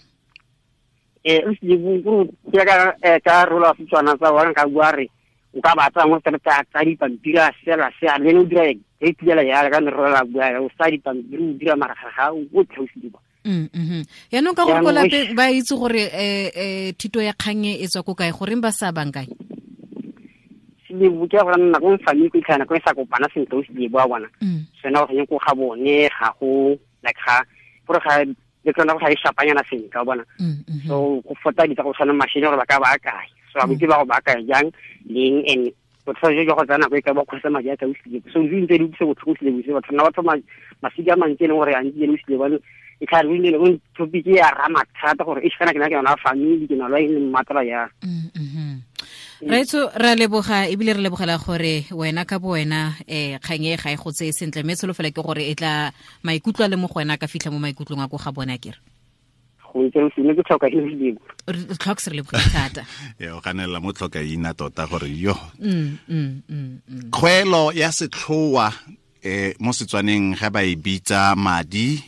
S9: O Selebo go ka ka rola Setswana tsa wa ka bua re o ka ba tsaya mo tsa tsa dipampiri a sela se a le o dira e tlela ya ka ne rola bua o sa dipampiri o dira mara ga o tlhe o Selebo.
S3: Yaanong ka gore ko lapeng ba itse gore thuto ya kgang e tswa ko kae goreng ba sa bankanye?
S9: Selebo ke gore nna ko family ko itlhana ko e sa kopana sentle o Selebo wa bona. Sena go ko ga bone ga go like ga gore ga le tsona go ga e shapanyana sentle wa bona. So go fota ditsa go tshwana machine gore ba ka ba kae. So a botse ba go ba kae jang leng and botlhokwa jo go tsena go e ka ba kgotsa madi a ka o Selebo. So di ntse di utlwisa botlhoko Selebo se batho nna ba thoma masika a mantsi e leng gore a ntse le Selebo e tla re le go topic ya rama thata gore e kana ke na ke yona family ke na lo e le matla ya.
S3: Raitso ra leboga ebile re lebogela gore wena ka bo wena kgang e ga e go tseye sentle mme tsholofelo ke gore e tla maikutlo a le mo go wena ka fitlha mo maikutlong a ko ga bona kere.
S9: Go ntse o sene ke tlhoka e Selebo.
S3: Re tlhoka re leboga thata.
S1: O ganela mo tlhoka ina tota gore yo. Kgwelo ya setlhoa mo Setswaneng ga ba e bitsa madi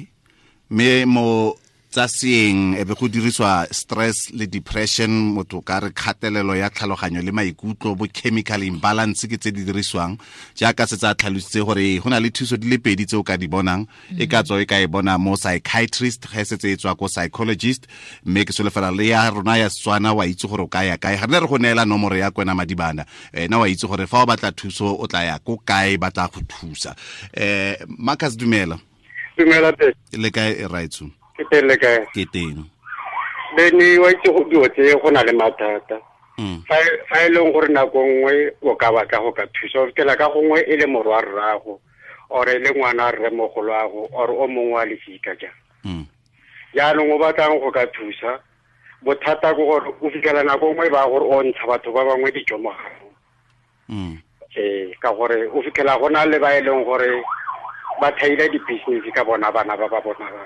S1: mme mo tsa seeng e be go diriswa stress le depression motho ka re kgatelelo ya tlhaloganyo le maikutlo bo chemical imbalance ke tse di dirisiwang jaaka se tsa tlhalositse gore go na le thuso di le pedi tse o ka di bonang e ka tswa e ka e bona mo psychiatrist ge setse e tswa ko psychologist mme ke solofela le ya rona ya Setswana wa itse gore o ka ya kae ga re go neela nomoro ya Kwena Madibana ena wa itse gore fa o batla thuso o tla ya ko kae ba tla go thusa. Marcus dumela.
S6: Dumela te.
S1: Le kae Raitso?
S6: Ke teng le kae?
S1: Ke teng.
S6: Bene wa itse go dilo tse go na le mathata. Fa e leng gore nako nngwe o ka batla go ka thusa, o fitlhela ka gongwe e le morwa rrago or e le ngwana rremogoloago or o mongwe wa lefika jang. Jaanong o batlang go ka thusa, bothata ke gore o fitlhela nako nngwe ba gore o ntsha batho ba bangwe dijo mo ganong. Ka gore o fitlhela go na le ba e leng gore ba thaile di-business ka bona bana ba ba bona
S1: ba.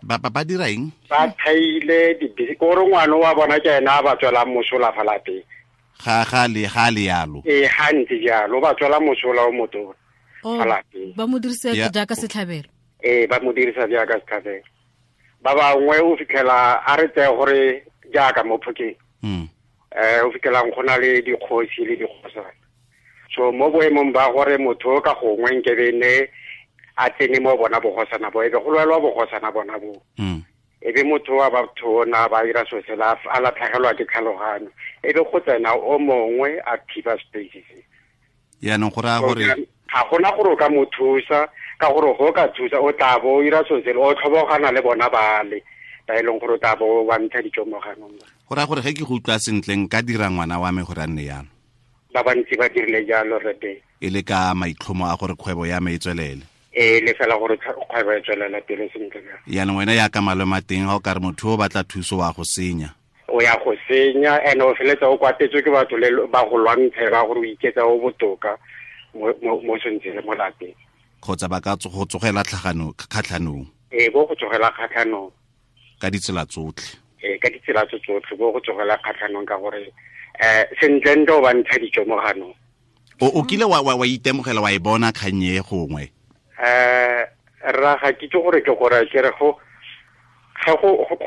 S1: Ba dira eng?
S6: Ba thaile di-business gore ngwana wa bona ke ena a ba tswelang mosola fa lapeng.
S1: Ga le yalo.
S6: Ee, ga ntse jalo, ba tswela mosola o motona fa lapeng.
S3: Ba mo dirisa jaaka setlhabelo.
S6: Ee, ba mo dirisa jaaka setlhabelo. Ba bangwe o fitlhela a re tseye gore jaaka mo Phokeng. O fitlhelang go na le dikgosi le dikgosana. So mo boemong ba gore motho ka gongwe nkebe ne a tsene mo bona bogosana bo, ebe go lwelwa bogosana bona bo. Ebe motho wa batho ona ba ira so sela a latlhegelwa ke tlhaloganyo, ebe go tsena o mongwe a thiba space se.
S1: Yaanong go raya gore
S6: ga gona gore o ka mo thusa, ka gore go ka thusa o tla bo o ira so sela o tlhobogana le bona bale ba e leng gore o tla bo wa ntsha dijo mo ganong.
S1: Go raya gore ge ke go utlwa sentle nka dira ngwana wa me gore a nne yalo.
S6: Ba bantsi ba dirile jalo rete.
S1: E le ka maitlhomo a gore kgwebo ya me e tswelele.
S6: E le fela gore kgwebo e tswelela pele sentle.
S1: Yaanong wena ya ka malome a teng ga o ka re motho o batla thuso wa go senya.
S6: O ya go senya, and o feletsa o kwatetswe ke batho le ba go lwantshe ba gore o iketsa o botoka mo sentse le mo lapeng.
S1: Kgotsa ba ka go tsogela kgatlhanong.
S6: Ee, bo go tsogela kgatlhanong.
S1: Ka ditsela tsotlhe.
S6: Ee, ka ditsela tsotlhe bo go tsogela kgatlhanong ka gore sentle ntle o ba ntsha dijo mo ganong.
S1: O kile wa itemogela wa e bona kgang e gongwe?
S6: Rra ga ke itse gore ke gore ke re go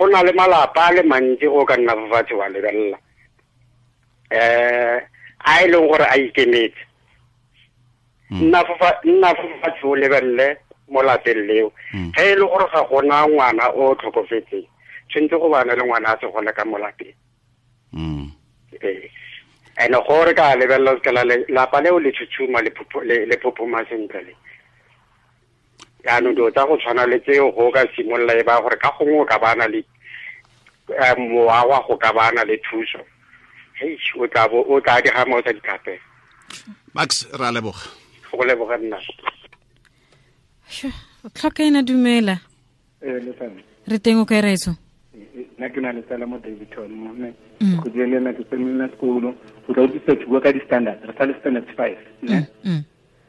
S6: na le malapa a le mantsi go ka nna fatshe wa lebelela. A e leng gore a ikemetse. Nna fatshe o lebelele mo lapeng leo. Ge e le gore ga gona ngwana o tlhokofetseng, tshwanetse go bana le ngwana a se gole ka mo lapeng. Ene gore ka lebelela se la lapa leo le tshutshuma le phophoma sentle le. Jaanong dilo tsa go tshwana le tseo go ka simolola e ba gore ka gongwe o ka bana le mowa wa go ka bana le thuso. Hei, o tla bo o tla diga mo tsa ditlhape.
S1: Max, ra leboga.
S6: Go leboga nna.
S3: Tlhoka ena dumela. Re teng o kae raetso?
S10: Nna ke na le tsala mo Davidton mo mme go dile le ke tsena sekolo go tla utlwisa ke bua ka di-standard, re sa le standard 5 ne.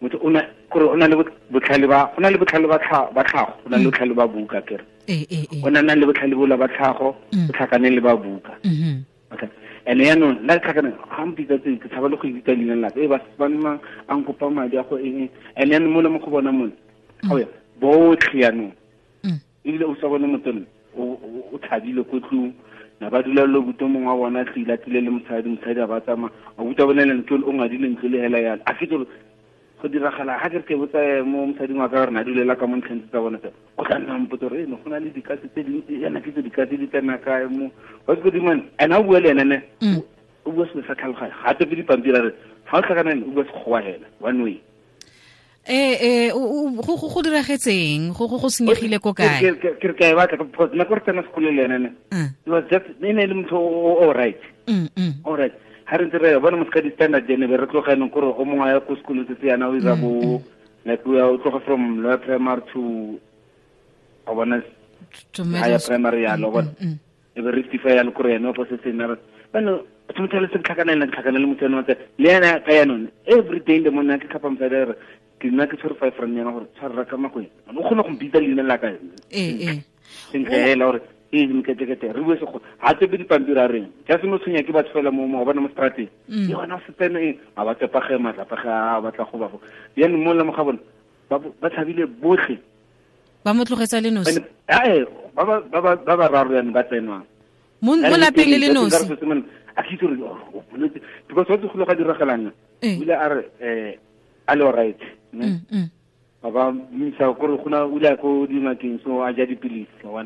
S10: Motho o na gore o na le botlhale ba o na le botlhale ba tlhago, o na le botlhale ba buka kere. O na le botlhale bola ba tlhago, o tlhakane le ba buka. Okay. And yaanong nna tlhakane ga mpitsa tse ke tshaba le go ibitsa leina la ka, ba nna a nkopa madi a go eng. And yaanong mo le mo go bona mone ga o ya botlhe yaanong ebile o sa bone motho o thabile ko tlung na ba dula le buto mongwe wa bona tlile tlile le mosadi a ba tsamaya a buta bone le ntlo o ngadile ntlo le hela yalo a fitse go diragala ga ke re ke botsa mo mosading wa ka gore na dulela ka mo ntlheng tsa bona tse o tla nna mpotsa gore eno go na le dikatse tse dintsi yana ke tse dikatse di tsena kae mo wa se godimo ene o bua le ene ne o bua selo sa tlhaloganyo ga a tope dipampiri a re ga o tlhakana ene o bua sekgowa hela one way.
S3: Go diragetseng go senyegile ko kae?
S10: Ke re ka e batla because nako re tsena sekolo le ene ne it was just e ne e le motho o right. All right. Ha re ntse re bona mo ska di-standard ene be re tloga yanong kore o mongwe a ya ko sekolong se se yana o ira bo like o tloga from lower primary to o bona higher primary yalo bona e be rectify yalo kore ene o fo se se nna bano motho le se tlhakana le motho ene le ena ka yanone every day in the morning ke tlhapa mosadi a re ke nna ke tshwere 5 rand yana gore tshwarra ka makweng o kgone go mpitsa leina la ka sentle hela gore e mketekete re bue sekgo ga tsepe dipampiri a reng ja se mo tshwenya ke batho fela mo go bona mo strateng e gona se tsene eng a ba tsepage matlapage a batla go ba go jaanong mo le mo ga bone ba tshabile botlhe
S3: ba mo tlogetsa le nosi
S10: ba ba bararo yanong ba tsenwang
S3: mo lapeng le le nosi
S10: a ke itse gore o boletse because wa tse go ga diragalang o ile a re a le alright ne ba misa gore go na o ile ko dingakeng so a ja dipilisi wa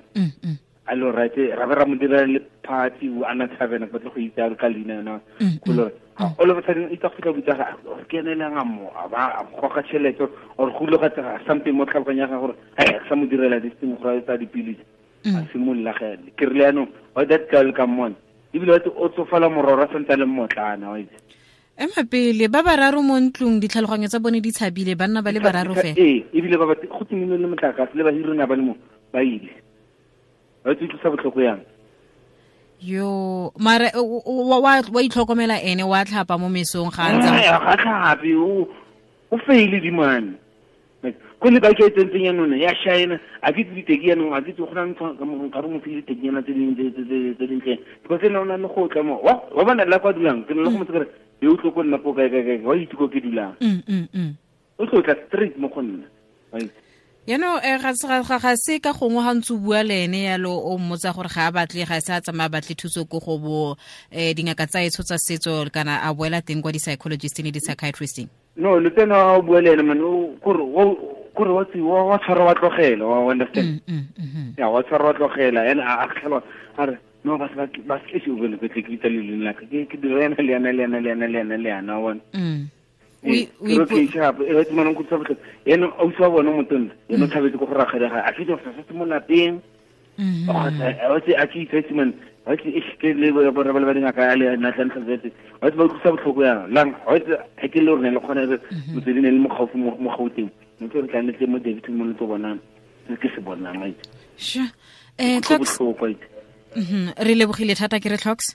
S10: a le alright ra be ra mo dira le party o ana thabena ba tle go itse a ka leina yona go le all of a sudden itse go tla botsa ga ke ene le nga mo a ba a goga tšhelete or go ile ga tsega something mo tlhaloganya ga gore a sa mo direla this thing go tsa dipilisi a simolola ge ke rile yanong wa that girl come on Ebile wa o tsofala mororo a santse a le mmotlana wa itse.
S3: Ema pele ba bararo mo ntlong ditlhaloganyo tsa bone di tshabile banna ba le bararo fela.
S10: Ee, ebile ba go timile le motlakase le bahiri na ba le mo ba ile. Ba itse utlwisa botlhoko yang.
S3: Yo, mara wa itlhokomela ene wa tlhapa mo mesong ga ntsa.
S10: Ga tlhape o faile dimane. Ko le ba ke tsentseng ya none ya shine a ke tsitse ke yanong a ke tse go nang ka mo ka mo file tenyana tse ding tse dintle because ena o na le go tla mo wa bona la kwa dulang ke le go motse kare yo tlo ko nna po kae kae wa itse ko ke dulang o tlo tla straight mo go nna right.
S3: Yaanong ga se ka gongwe ga ntse o bua le ene yalo o mmotsa gore ga a batle ga se a tsamaya batle thuso ko go bo dingaka tsa etsho tsa setso kana a boela teng kwa di-psychologist le di-psychiatrist.
S10: No, le tsena o bua le ene man o kore wa wa tshwara wa tlogela wa understand. Ya wa tshwara wa tlogela ene a tlhelo a re no ba ba se se o bone ke tle ke itse le lena ke ke dira ena le ena le ena le ena le ena le ena wa o ke tshapo e re manong go tshapo ene o tswa bona motona ene o tshabetse go go ragela ga a fitse go sa mo lapeng a tse a ke itse man a ke e ke le bo ba ba dingaka le na tla ntse tse wa ba utlwisa botlhoko yang lang wa itse ha ke le rone le khone re motswedi ne le mo gaufi mo Gauteng ne ke re tla ne tle mo David mo le tlo bonang ke se bonang wa itse.
S3: Sure. Tlhoks re lebogile thata ke re Tlhoks.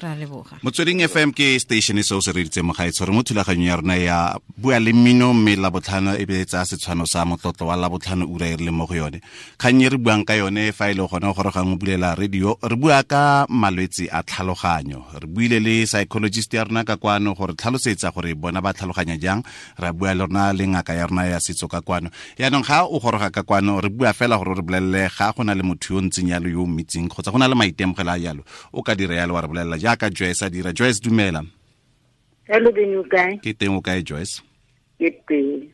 S3: Ra leboga.
S1: Motsweding FM ke station e seo se reditse mo gaetsho re mo thulaganyong ya rona ya bua le mmino mme Labotlhano e be tsa setshwano sa motlotlo wa Labotlhano ura e re leng mo go yone. Kgang e re buang ka yone fa e le gone gore gang o bulela radio re bua ka malwetse a tlhaloganyo. Re buile le psychologist ya rona ka kwano gore tlhalosetsa gore bona ba tlhaloganya jang, ra bua le rona le ngaka ya rona ya setso ka kwano. Yaanong ga o goroga ka kwano re bua fela gore re bolelele ga go na le motho yo ntseng yalo yo o mmitseng kgotsa go na le maitemogelo a yalo o ka dira yalo wa re bolelela jaaka Joyce a dira. Joyce dumela.
S5: Hello Ben, o kae?
S1: Ke teng, o kae Joyce?
S5: Ke teng.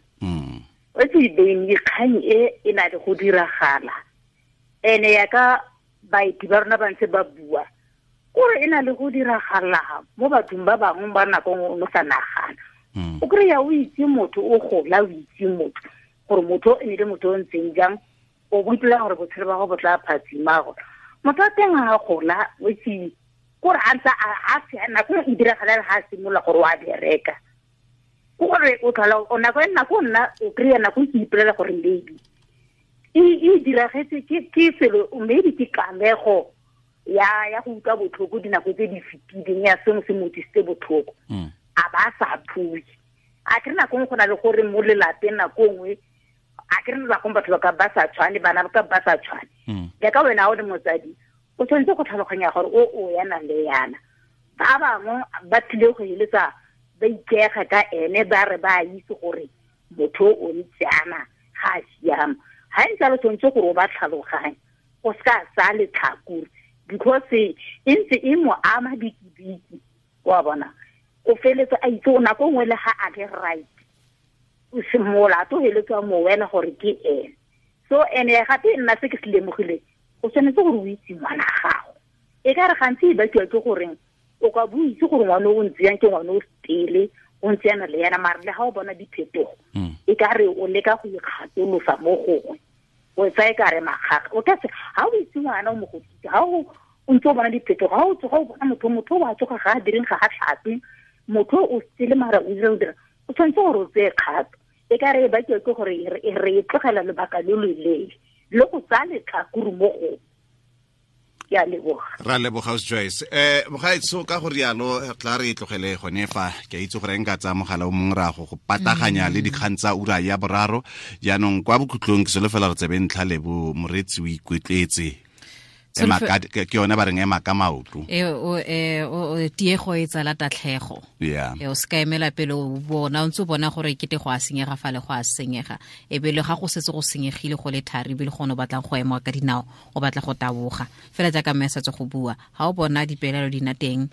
S5: O tse Ben dikgang e na le go diragala. Ene ya ka baeti ba rona ba ntse ba bua gore e na le go diragala mo bathong ba bangwe ba nako o sa nagana. O kry-a o itse motho o gola o itse motho gore motho e ne le motho o ntseng jang o boipela gore botshelo ba go bo tla phatsima gore motho wa teng a gola o itse gore a ntse a nako e diragalela ga a simolola gore o a bereka gore o tlhola o nako e nako nna o kry-a nako ke ipolela gore maybe e diragetse ke selo maybe ke kamego ya go utlwa botlhoko dinako tse di fetileng ya sengwe se mo tlisitse botlhoko a ba sa phue. A ke re nako nngwe go na le gore mo lelapeng nako nngwe a ke re nako batho ba ka ba sa tshwane bana ba ka ba sa tshwane jaaka wena o le motsadi o tshwanetse go tlhaloganya gore o yana le yana ba bangwe ba tlile go eletsa ba ikega ka ene ba re ba itse gore motho o ntse ana ga a siama ga ntse a le tshwanetse gore o ba tlhaloganye o seka sa letlhakore because e ntse e mo ama bikibiki wa bona o feletse a itse o nako nngwe le ga a le right o simolola to heletswa mo wena gore ke ene. So ene gape nna se ke se lemogile o tshwanetse gore o itse ngwana gago e ka re gantsi e bakiwa ke goreng o ka bo itse gore ngwana o ntse yang ke ngwana o stele o ntse yana le yana mare le ga o bona diphetogo e ka re o leka go ikgatolosa mo gongwe o tsaya e ka re makgakga o ka se ga o itse ngwana o mo godise ga o ntse o bona diphetogo ga o tsoga o bona motho o a tsoga ga a direng ga a tlhape motho o stele mara o dira o dira o tshwanetse gore o tseye kgato e ka re e bakiwa ke gore re e tlogela lobaka lo loleele le go tsaya letlhakore mo go ke a leboga.
S1: Ra leboga Joyce. Mogaetso ka go rialo tla re tlogele gone fa ke a itse gore nka tsaya mogala o mongwe ra go pataganya le dikgang tsa ura ya boraro jaanong kwa bokhutlong ke solofela re tsebe ntlha lebo moretsi o ikwetletse ke yone ba reng ema ka maoto
S3: tiego e tsala tatlhego o se ka emela pele o bona o ntse o bona gore kete go a senyega fa le go a senyega e be le ga go setse go senyegile go le thari ebile gone o batlang go ema ka dinao o batla go taboga fela jaaka mme a setse go bua ga o bona dipelaelo di na teng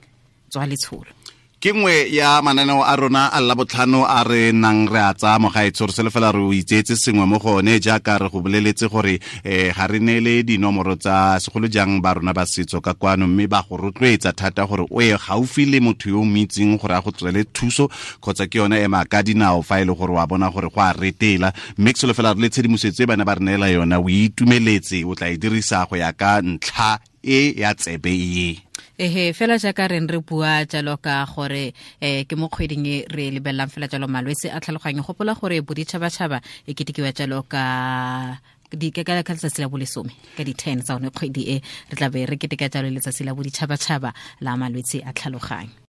S3: tswa letsholo.
S1: Ke nngwe ya mananeo a rona a Labotlhano a re nang re a tsaya mogaetsho re solofela re o itseetse sengwe mo go one jaaka re go boleletse gore ga re neele dinomoro tsa segolo jang ba rona ba setso ka kwano mme ba go rotloetsa thata gore o ye gaufi le motho yo o mo itseng gore a go tswele thuso kgotsa ke yone ema ka dinao fa e le gore wa bona gore go a retela mme ke solofela re le tshedimosetso e bana ba re neela yona o itumeletse o tla e dirisa go ya ka ntlha e ya tsebe e.
S3: Ehe, fela jaaka re re bua jalo ka gore ke mo kgweding e re lebelelang fela jalo malwetse a tlhaloganyo. Gopola gore boditšhabatšhaba e ketekiwa jalo ka ka letsatsi la bolesome ka di-10 tsa one kgwedi e, re tla be re keteka jalo letsatsi la boditšhabatšhaba la malwetse a tlhaloganyo.